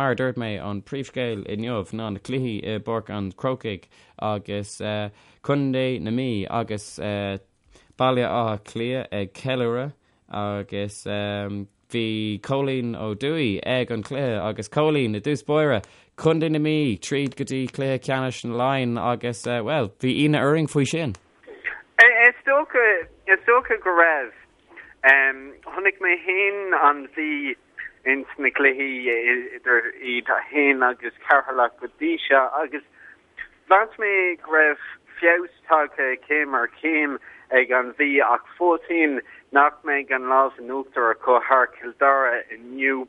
mar a dúirt mé, an príomhscéal inniu ná na cluichí i bPáirc an Chrócaigh agus Contae na Mí agus Baile Átha Cliath ag ceiliúradh agus bhí Cóilín Ó Dufaigh ag an chluiche agus Cóilín, i dtús báire, Contae na Mí tríd go dtí cluiche ceannais na Laighean agus, bhuel, bhí ionadh orainn faoi sin. Is dócha, is dócha go raibh. Chonaic mé féin an Mhí ins na cluichí idir iad féin agus Ceatharlach go dtí seo agus mheas mé go raibh feabhas tagtha céim ar chéim ag an Mhí ach fós féin nach mbeidh an lámh in uachtar acu thar Cill Dara inniu.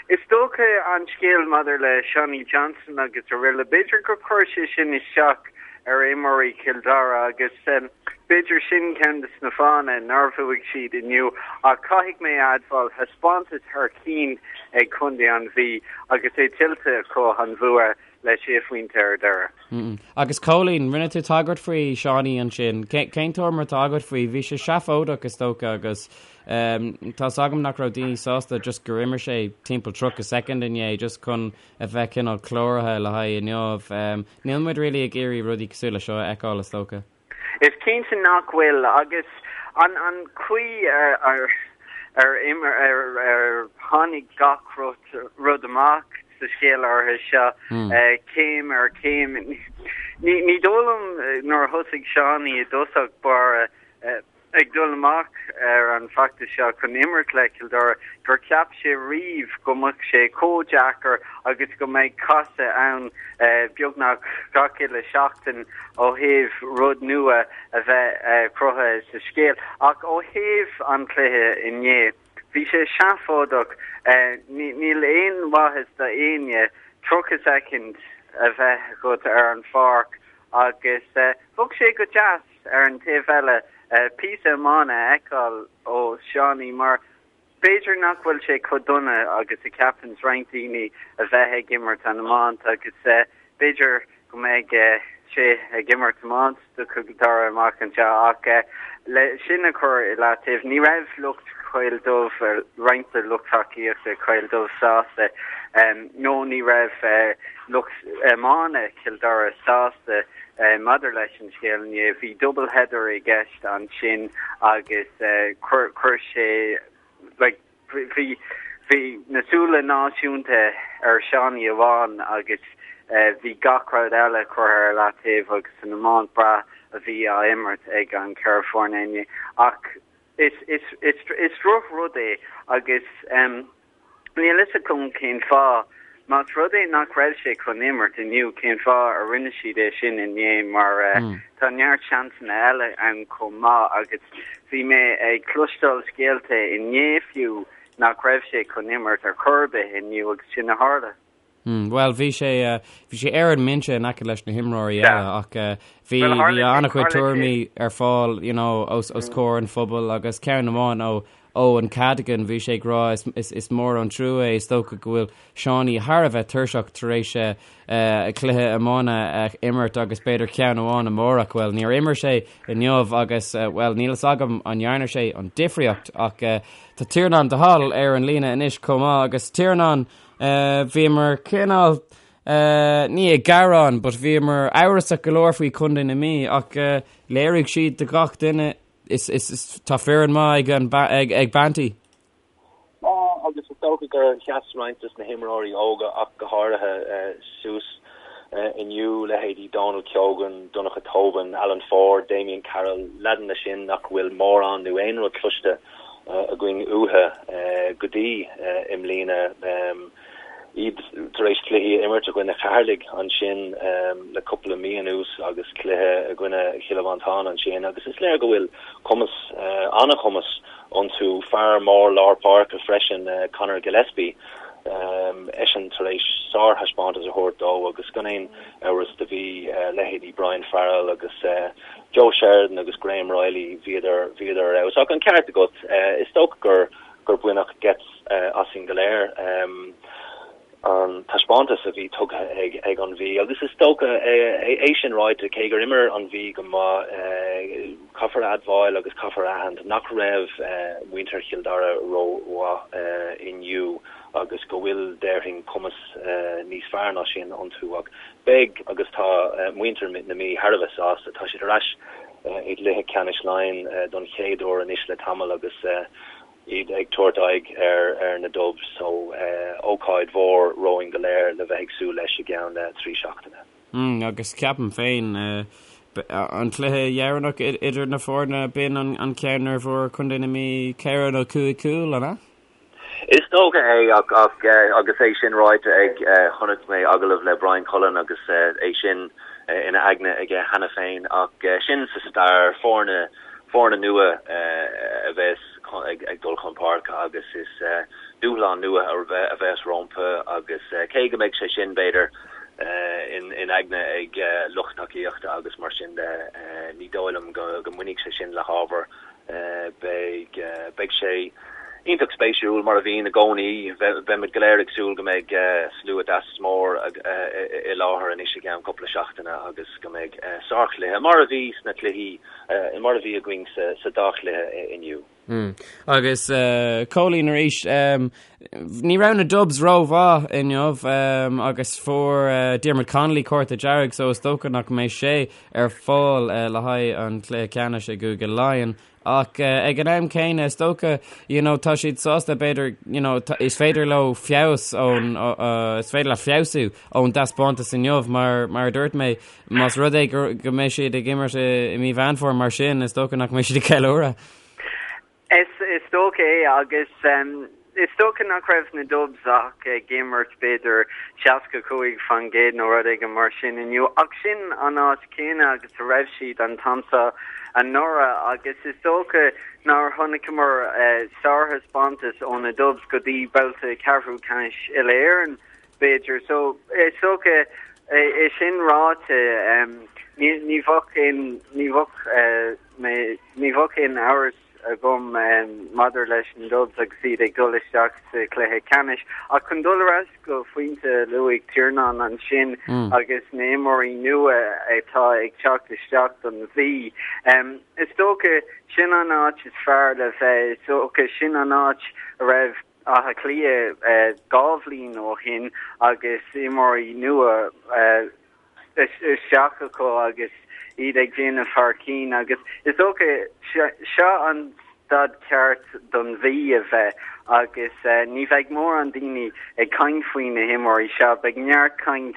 Is dócha an scéal maidir le Seánie Johnston agus araile, b'fhéidir gur chuir sé sin isteach ar imreoirí Chill Dara agus b'fhéidir sin ceann de na fáthanna nár bhuaigh siad inniu ach caithfidh mé a admháil, thaispeántas thar cinn ag contae an Mhí agus é tuillte acu an bhua le sé phointe ar deireadh. Agus Cóilín, rinne tú tagairt faoi Seánie ansin. Cén tuairim atá agat faoi? Bhí sé seafóideach is dócha agus tá's agam nach raibh daoine sásta just gur imir sé timpeall 30 soicind inné just chun a bheith cineál cláraithe le haghaidh inniu. Níl muid really ag iarraidh rudaí cosúil le seo a fheiceáil is dócha. Is cinnte nach bhfuil agus an an chaoi ar ar imir ar ar tháinig gach rud rud amach sa scéal áirithe seo céim ar chéim. Ní ní dóigh liom nuair a thosaigh Seánie i dtosach báire ag dul amach ar an bhfeachtas seo chun imirt le Cill Dara gur cheap sé riamh go mbeadh sé chomh deacair agus go mbeidh casadh ann beagnach gach uile seachtain ó thaobh rud nua a bheith cruthaithe sa scéal. Ach ó thaobh an chluiche inné, bhí sé seafóideach. Níl aon mhaitheas do éinne 30 soicind a bheith agat ar an pháirc agus bheadh sé go deas Ar an taobh eile, píosa iomána a fheiceáil ó Seánie mar b'fhéidir nach bhfuil sé chomh dona agus a cheapanns roinnt daoine a bheith ag imirt an iomáint agus b'fhéidir go mbeidh sé ag imirt iomáint do Chill Dara amach anseo ach le sin a chur i leataobh, ní raibh lucht Choill Dubh, roinnt de lucht tacaíochta Choill Dubh sásta nó ní raibh lucht iomána Chill Dara sásta Maidir leis an scéal inné, bhí double header i gceist ansin agus chuir sé like bhí bhí na súile náisiúnta ar Seánie amháin agus bhí gach rud eile curtha ar leataobh agus an iomáint breá a bhí á imirt ag an cheithre foirne inné. Ach is is is is drochrud é agus Níl fhios agam cén fáth. Más rud é nach raibh sé chun imirt inniu, cén fáth a rinne siad é sin inné mar tá neart seansanna eile ann chomh maith agus bhí mé ag cloisteáil scéalta inné fiú nach raibh sé chun imirt ar chor ar bith inniu agus sin a tharla. Bhuel, bhí sé, bhí sé ar an mbinse in aice leis na himreoirí eile ach bhí, bhí an-chuid tuairimí ar fáil, you know, os, os comhair an phobail agus ceann amháin ó Eoin Cadogan, bhí sé ag rá is, is, is mór an trua é, is dócha go bhfuil Seánie thar a bheith tuirseach tar éis cluiche iomána a imirt agus b'fhéidir ceann amháin amárach. Bhuel, níor imir sé inniu agus, bhuel, níl fhios agam an ndearna sé an difríocht ach tá Tiarnán de Hál ar an líne anois chomh maith agus Tiarnán, Bhíomar cineál, ní ag gearán, but bhíomar amhrasach go leor faoi Chontae na Mí ach léirigh siad do gach duine is, is, is tá foireann maith ag an, ag, ag Banty. Tá, agus is dócha gur sheas roinnt de na himreoirí óga ach go háirithe suas inniu, leithéidí Dónal Keogan, Donncha Tobin, Alan Ford, Damien Carroll, leaideanna sin nach bhfuil mórán nó aon rud cloiste againn uathu go dtí i mbliana. Iad tar éis cluichí a imirt i gcoinne Cheatharlaigh ansin le cúpla mí anuas agus cluiche i gcoinne Chill Mhantáin ansin agus is léir go bhfuil cumas, an-chumas iontu. Fear mór lár páirce freisin, Conor Gillespie, eisean tar éis sárthaispeántas a thabhairt dó agus gan aon amhras do bhí leithéidí Brian Farrell agus Joe Sheridan agus Graham Reilly, bhíodar, bhíodar ar fheabhas. Ach an ceart agat, is dócha gur, gur baineadh geit asainn go léir an taispeántas a bhí tugtha ag, ag an Mhí. Agus is dócha, é sin ráite, cé gur imir an Mhí go maith, caithfear a admháil agus caithfear a aithint nach raibh muintir Chill Dara rómhaith inniu. agus go bhfuil, déarfainn, cumas níos fearr ná sin iontu. Ach beidh agus tá muintir na Mí thar a bheith sásta. Tá siad ar ais i gcluiche ceannais Laighean don chéad uair anois le tamall agus iad ag tabhairt aghaidh ar na Dubs so ócáid mhór romhainn go léir le bheith ag súil leis i gceann 3 seachtaine. Agus ceapaim féin, an cluiche dheireanach idir na foirne, b'in an ceann nuair a fuair Contae na Mí ceithre nó cúig cúl, an ea? Is dócha é ach agus é sin ráite ag, chonaic mé agallamh le Brian Cullen agus é sin ina aigne aige cheana féin ach sin sa stair, foirne, foirne nua a bheas ag dul chun páirce agus is dúshlán nua a bheas rompu agus cé go mbeidh sé sin, b'fhéidir, in aigne ag lucht tacaíochta agus mar sin de, ní dóigh liom go mbainfidh sé sin le hábhar. Beidh, beidh sé iontach spéisiúil, mar a bhíonn i gcónaí. Beimid go léir ag súil go mbeidh slua deas mór i láthair anois i gceann cúpla seachtaine agus go mbeidh sárchluiche, mar a bhí sna cluichí, mar a bhí againn sa dá chluiche inniu. Agus Cóilín arís, ní raibh na Dubs rómhaith inniu agus fuair Diarmuid Connolly cárta dearg so is dócha nach mbeidh sé ar fáil le haghaidh an chluiche ceannais i gCúige Laighean. Ach ag an am céanna is dócha you know, tá siad sásta b'fhéidir you know, is féidir leo feabhas ón is féidir leo feabhsú ón dtaispeántas inniu mar mar a dúirt mé más rud é go go mbeidh siad ag imirt i mí Mheán Fómhair mar sin is dócha nach mbeidh siad ag ceiliúradh. Is is dócha é agus is dócha nach raibh na Dubs ach ag imirt b'fhéidir 65% nó rud éigin mar sin inniu ach sin an áit chéanna agus a raibh siad an t-am seo anuraidh agus is dócha nár chonaiceamar sárthaispeántas ó na Dubs go dtí babhta ceathrú ceannais Uile-Éireann b'fhéidir. So is dócha é sin ráite ní ní bheadh aon ní bheadh mé ní bheadh aon amhras agam maidir leis na Dubs agus iad ag dul isteach sa chluiche ceannais. Ach chun dul ar ais go phointe a luaigh Tiarnán ansin agus na himreoirí nua atá ag teacht isteach don Mhí, is dócha sin an áit is fearr le bheith, is dócha sin an áit a raibh Áth Cliath 2 bhliain ó shin agus imreoirí nua isteach acu agus iad ag déanamh thar cinn agus is dócha seo an staid ceart don Mhí a bheith agus ní bheidh mórán daoine ag caint faoi na himreoirí seo, beidh neart caint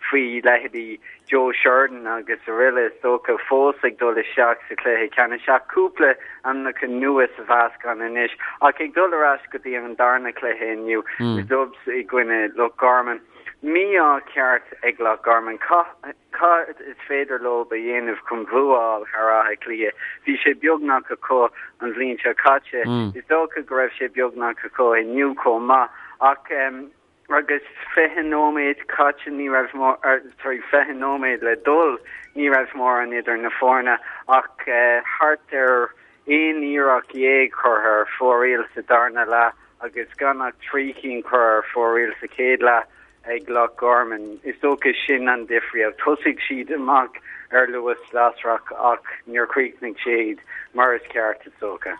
faoi leithéidí Joe Sheridan agus araile is dócha fós ag dul isteach sa chluiche ceannais ach cúpla ainmneacha nua sa mheascán anois ach ag dul ar ais go dtí an darna cluiche inniu, na Dubs i gcoinne Loch Garman. Mí-ádh ceart ag Loch Garman. Cad is féidir leo a dhéanamh chun bua a fháil thar Áth Cliath? Bhí sé beagnach acu an bhliain seo caite. Is dócha go raibh sé beagnach acu inniu chomh maith. Ach agus 20 nóiméad caite ní raibh sorry 20 nóiméad le dul ní raibh mórán idir na foirne ach thart ar aon iarracht dhéag curtha ar fóraoil sa darna leath agus gan ach 3 cinn curtha ar fóraoil sa chéad leath ag Loch Garman. Is dócha sin an difríocht. Thosaigh siad amach ar luas lasrach ach níor chríochnaigh siad mar is ceart, is dócha.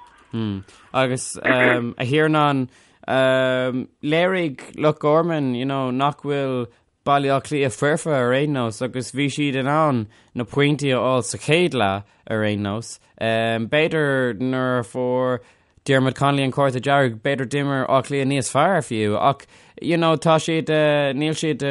Agus a Thiarnáin, léirigh Loch Garman you know, nach bhfuil Baile Átha Cliath foirfe ar aon nós agus bhí siad in ann na pointí a fháil sa chéad leath ar aon nós. B'fhéidir nuair a fuair Diarmuid Connolly an cárta dearg, b'fhéidir d'imir Áth Cliath níos fearr fiú ach you know, tá siad, níl siad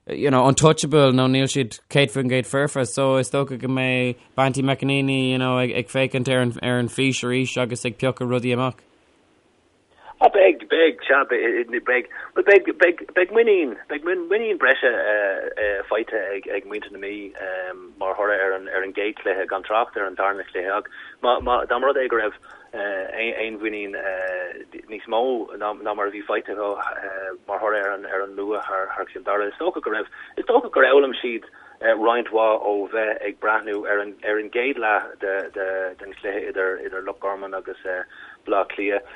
you know, untouchable nó níl siad 100% foirfe so is dócha go mbeidh Banty McEnaney you know, ag, ag féachaint ar an, ar an fís arís agus ag piocadh rudaí amach. Ah, beidh, beidh, sea, beidh, bhuel, beidh, beidh, beidh muinín, beidh muinín breise faighte ag, ag muintir na Mí mar thoradh ar an, ar an gcéad chluiche, gan trácht ar an darna cluiche. Ach má, má, dá mba rud é go raibh aon mhuinín níos mó ná, ná mar a bhí faighte acu mar thoradh ar an, ar an mbua thar, thar Chill Dara, is dócha go raibh, is dócha gur fhoghlaim siad roinnt mhaith ó bheith ag breathnú ar an ar an gcéad leath de de den chluiche idir idir Loch Garman agus Baile Átha Cliath.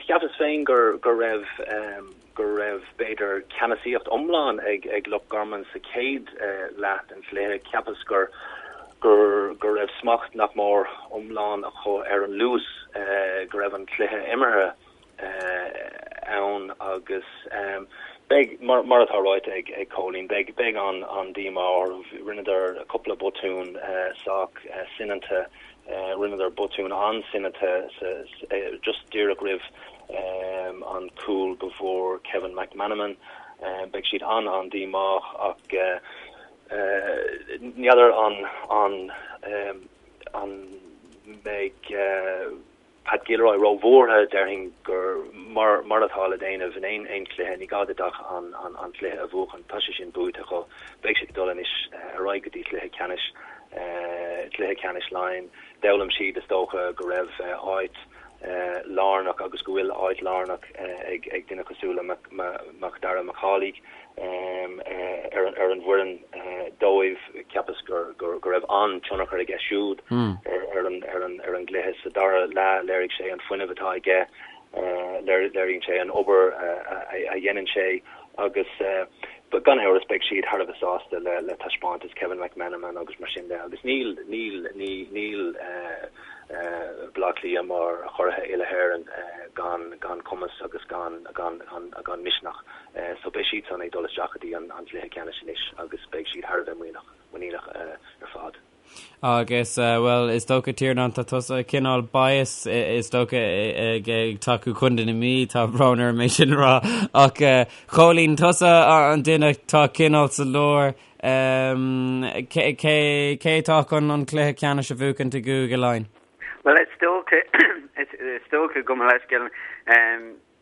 Cheapas féin gur go raibh go raibh b'fhéidir ceannasaíocht iomlán ag ag Loch Garman sa chéad leath den chluiche. Cheapas gur gur go raibh smacht nach mór iomlán acu ar an luas go raibh an cluiche imeartha. ann agus beidh, mar atá ráite ag Cóilín, beidh beidh an-díomá orthu. Rinneadar cúpla botún sách soineanta, rinneadar botún an-soineanta just díreach roimh an cúl go bhfuair Kevin McManamon. Beidh siad an-an-díomách ach n'fheadar an an mbeidh Pat Gilroy róbhuartha, déarfainn gur mar mar atá le déanamh in aon aon chluiche, ní gá duit ach an an an cluiche a bhuachan, tá sé sin buaite acu, beidh siad ag dul anois ar aghaidh go dtí cluiche ceannais, cluiche ceannais Laighean. D'fhoghlaim siad is dócha go raibh áit lárnach agus go bhfuil áit lárnach ag ag duine cosúil le Macdara Mac Amhlaigh. ar an bhfoireann dóibh. Cheapas go raibh an-tionchar aige siúd ar an gcluiche. Sa dara leath, léirigh sé an fuinneamh atá aige, léiríonn sé an obair a dhéanann sé agus gan amhras beidh siad thar a bheith sásta le taispeántas Kevin McManamon agus mar sin de agus níl, níl, níl Baile Átha Cliath mar churaithe uile-Éireann gan cumas agus gan misneach. So beidh siadsan ag dul isteach go dtí an cluiche ceannais anois agus beidh siad thar a bheith muiníneach, muiníneach ar fad. Agus, bhuel, is dócha, Tiarnán, tá tusa cineál bias, is dócha, ag tacú Contae na Mí, tá brón orm é sin a rá, ach Chóilín, tusa an duine atá cineál sa lár, cé, cé, cé atá chun an cluiche ceannais a bhuachaint i gCúige Laighean? Bhuel, is dócha, is dócha gabh mo leithscéal,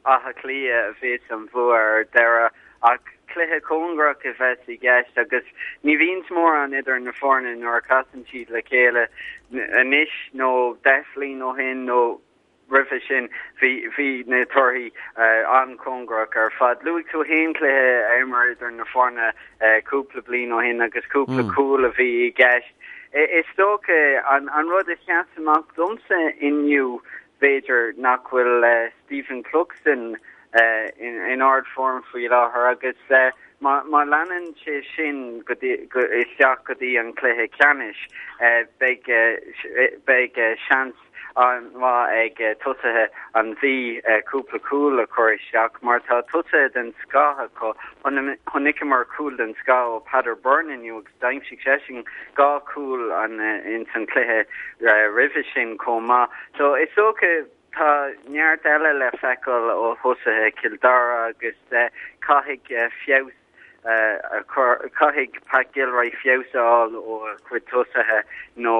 Áth Cliath a bheas an bhua ar deireadh ach cluiche cóngarach a bheas i gceist agus ní bhíonns mórán idir na foirne nuair a chasann siad le chéile anois nó 10 bhliain ó shin nó roimhe sin bhí bhí na torthaí an-chóngarach ar fad. Luaigh tú féin cluiche a imir idir na foirne cúpla bliain ó shin agus cúpla cúl a bhí i gceist. Is dócha an rud a sheas amach domsa inniu B'fhéidir nach bhfuil Stephen Cluxton in ardfhoirm faoi láthair agus má leanann sé sin isteach go dtí an cluiche ceannais, beidh seans an-mhaith ag tosaithe an Mhí cúpla cúl a chur isteach mar tá tosaithe den scoth acu. Chonaiceamar cúl den scoth ó Peadar Byrne inniu agus D'aimsigh seisean 2 chúl ins an cluiche roimhe sin chomh maith. So is dócha tá neart eile le feiceáil ó thosaithe Chill Dara agus caithfidh feabhas a chur, caithfidh Pat Gilroy feabhas a fháil ó a chuid tosaithe nó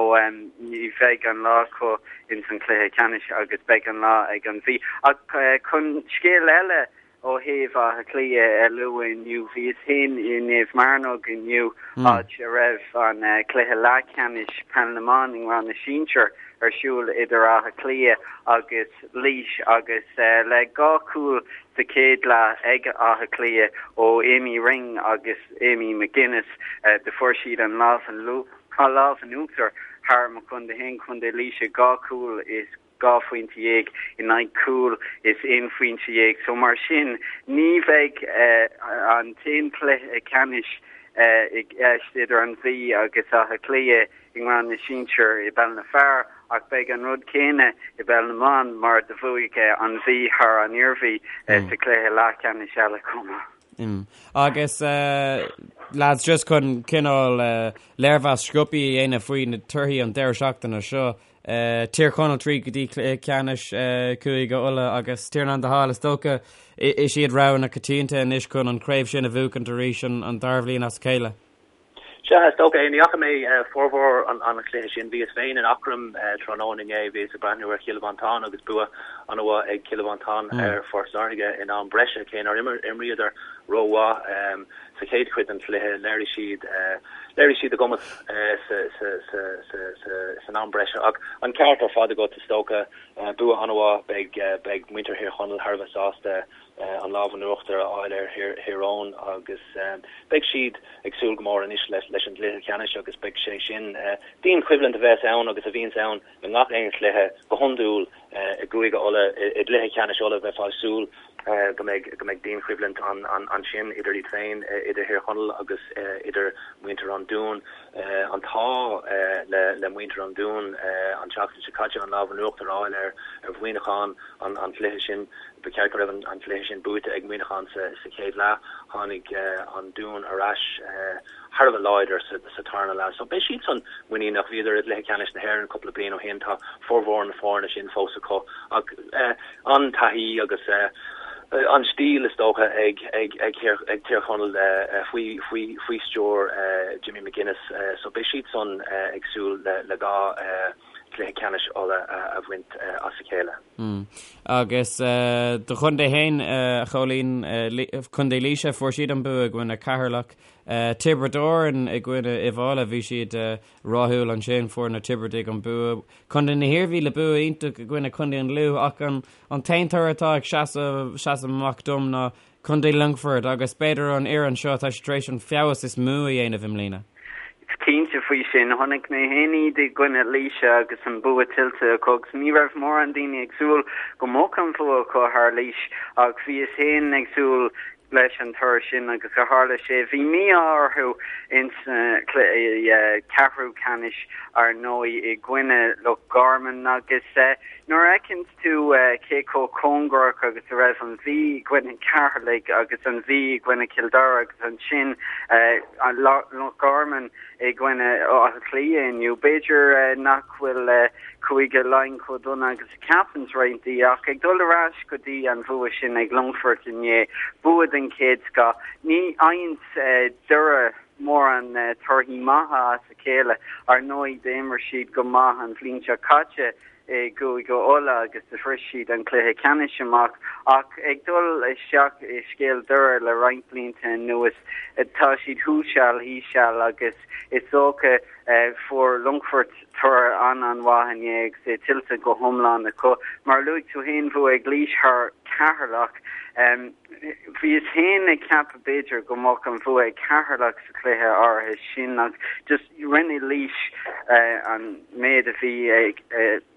ní bheidh an lá acu ins an chluiche ceannais agus beidh an lá ag an Mhí. Ach chun scéal eile Ó thaobh Átha Cliath a lua inniu, bhíos féin i Naomh Mearnóg inniu, áit a raibh an cluiche leathcheannais Peil na mBan i ngrád na Sinsear ar siúl idir Áth Cliath agus Laois agus le 2 chúl sa chéad leath ag Áth Cliath ó Amy Ring agus Amy McGuinness, do fuair siad an lámh in uachtar thar mo chontae féin, Contae Laoise, 2 chúl is 12 phointe in aghaidh cúl is 11 phointe. So mar sin ní bheidh an t-aon chluiche ceannais i gceist idir an Mhí agus Áth Cliath i ngrád na sinsear i bpeil na bhfear ach beidh an rud céanna i bpeil na mban mar do bhuaigh an Mhí thar an Iarmhí sa chluiche leathcheannais eile chomh maith. Agus lads just chun cineál léirmheas sciobtha a dhéanamh faoi na torthaí an deireadh seachtaine seo, Tír Chonaill tríd go dtí cluiche ceannais Chúige Uladh agus Tiarnán de hÁl is dócha is iad rogha na coitianta anois chun an chraobh sin a bhuachaint arís an dara bhliain as a chéile. Sea, is dócha é. Ní fhaca mé formhór an chluiche sin. Bhíos féin in Eachroim tráthnóna inné. Bhíos ag breathnú ar Chill Mhantáin agus bua an-mhaith ag Cill Mhantáin ar Phort Láirge in am breise, cé nár imríodar rómhaith. Sa chéad chuid den chluiche, léirigh siad léirigh siad a gcumas san am breise. Ach an ceart ar fad agat, is dócha. Bua an-mhaith. Beidh beidh muintir Thír Chonaill thar a bheith sásta an lámh in uachtar a fháil ar Thír Eoghain agus beidh siad ag súil go mór anois leis an gcluiche ceannais agus beidh sé sin dianchoimhlint a bheas ann agus a bhíonns ann i ngach aon chluiche go hiondúil i gCúige Uladh. I gcluiche ceannais Uladh bheifeá ag súil. Go mbeidh go mbeidh dianchoimhlint ansin idir iad féin, idir Thír Chonaill agus idir muintir an Dúin. An t-ádh le le muintir an Dúin an tseachtain seo caite an lámh in uachtar a fháil ar ar Mhuineachán an an cluiche sin. Ba cheart go raibh an cluiche sin buaite ag Muineachán sa sa chéad leath. Tháinig an Dún ar ais thar a bheith láidir sa tarna leath. So beidh siadsan muiníneach. Bhíodar i gcluiche ceannais na hÉireann cúpla bliain ó shin. Tá formhór na foirne sin fós acu. Ach an taithí agus an stíl is dócha ag ag ag ag Tír Chonaill faoi faoi faoi stiúir Jimmy McGuinness. So beidh siadsan ag súil le le 2 chluiche ceannais Uladh a bhaint as a chéile. Agus do chontae féin, a Chóilín, Contae Laoise, fuair siad an bua i gcoinne Ceatharlach. Tiobraid Árann i gcoinne Uíbh Fhailí, bhí siad rathúil ansin, fuair na Tiobradaigh an bua. Contae na hIarmhí le bua iontach i gcoinne Contae an Lú ach an t-aon toradh atá ag seasamh amach dom ná Contae Longfoirt agus b'fhéidir an fhoireann seo tá siad tar éis an feabhas is mó a dhéanamh i mbliana. Cinnte faoi sin. Chonaic mé féin iad i gcoinne Laoise agus an bua tuillte acu agus ní raibh mórán daoine ag súil go mbeadh an bhua acu thar Laois ach bhíos féin ag súil leis an toradh sin agus a tharla sé. Bhí mí-ádh orthu ins na cluiche ceathrú ceannais ar ndóigh i gcoinne Loch Garman agus nuair a fheiceanns tú cé chomh cóngarach agus a raibh an Mhí i gcoinne Cheatharlaigh agus an Mhí i gcoinne Chill Dara agus ansin Loch Garman i gcoinne Átha Cliath inniu, b'fhéidir nach bhfuil Cúige Laighean chomh dona agus a cheapanns roinnt daoine ach ag dul ar ais go dtí an bhua sin ag Longfort inné, bua den chéad scoth. Ní fhaigheanns Doire mórán torthaí maithe as a chéile. Ar ndóigh d'imir siad go maith an bhliain seo caite i gCúige Uladh agus do shroich siad an cluiche ceannais amach ach ag dul isteach i scéal Doire le roinnt blianta anuas tá siad thuas seal thíos seal agus is dócha fuair Longfort toradh an-an-mhaith inné agus é tuillte go hiomlán acu. Mar a luaigh tú féin bhuaigh Laois thar Cheatharlach. Bhíos féin ag ceapadh b'fhéidir go mbeadh an bhua ag Ceatharlach sa chluiche áirithe sin ach just rinne Laois an méid a bhí ag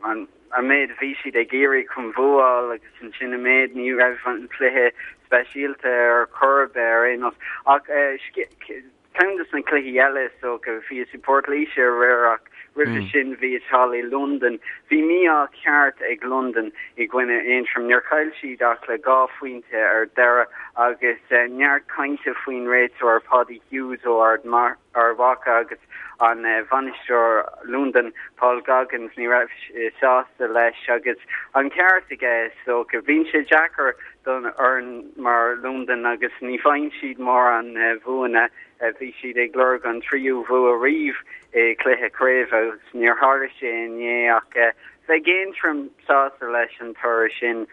an méid a bhí siad ag iarraidh chun bhuáil agus ansin an méid ní raibh an cluiche speisialta ar chor ar bith ar aon nós ach Ceann de na cluichí eile is dócha, bhíos i bPort Laoise aréir ach roimhe sin bhíos thall i Londain. Bhí mí-ádh ceart ag Londain i gcoinne Aontroim. Níor chaill siad ach le 2 phointe ar deireadh agus neart cainte faoin réiteoir Paddy Hughes ó Ard Mhacha agus an bainisteoir Londain Paul Goggins. Ní raibh sé sásta leis agus an ceart aige is dócha. Bíonn sé deacair don fhoireann mar Londain agus ní bhfaigheann siad mórán bhuanna. Bhí siad ag lorg an tríú bhua riamh i gcluiche craoibhe agus níor tharla sé inné ach bheadh Aontroim sásta leis an toradh sin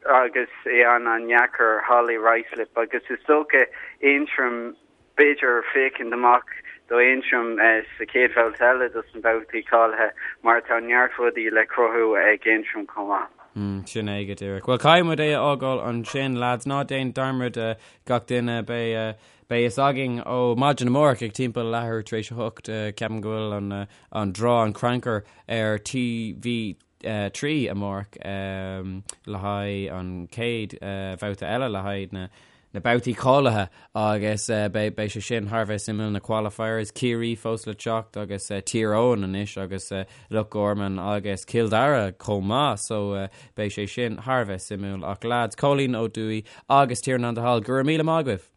agus é an-an-dheacair thall i Ruislip agus is dócha Aontroim b'fhéidir féachaint amach do Aontroim sa chéad bhabhta eile dos na babhtaí cáilithe mar tá neart rudaí le cruthú ag Aontroim chomh maith. Sin é go díreach. Bhuel, caithfidh muid é a fhágáil ansin, lads. Ná déan dearmad gach duine, beidh beidh fhios againn ó maidin amárach ag timpeall leathuair tar éis a hocht, ceapaim go bhfuil an an draw, an crannchur ar TV 3 amárach le haghaidh an chéad bhabhta eile le haghaidh na na babhtaí cáilithe agus beidh beidh sé sin thar a bheith suimiúil na qualifiers, Ciarraí fós le teacht agus Tír Eoghain anois agus Loch Garman agus Cill Dara chomh maith so beidh sé sin thar a bheith suimiúil ach lads, Cóilín Ó Dúill agus Tiarnán de hAll, go raibh míle maith agaibh!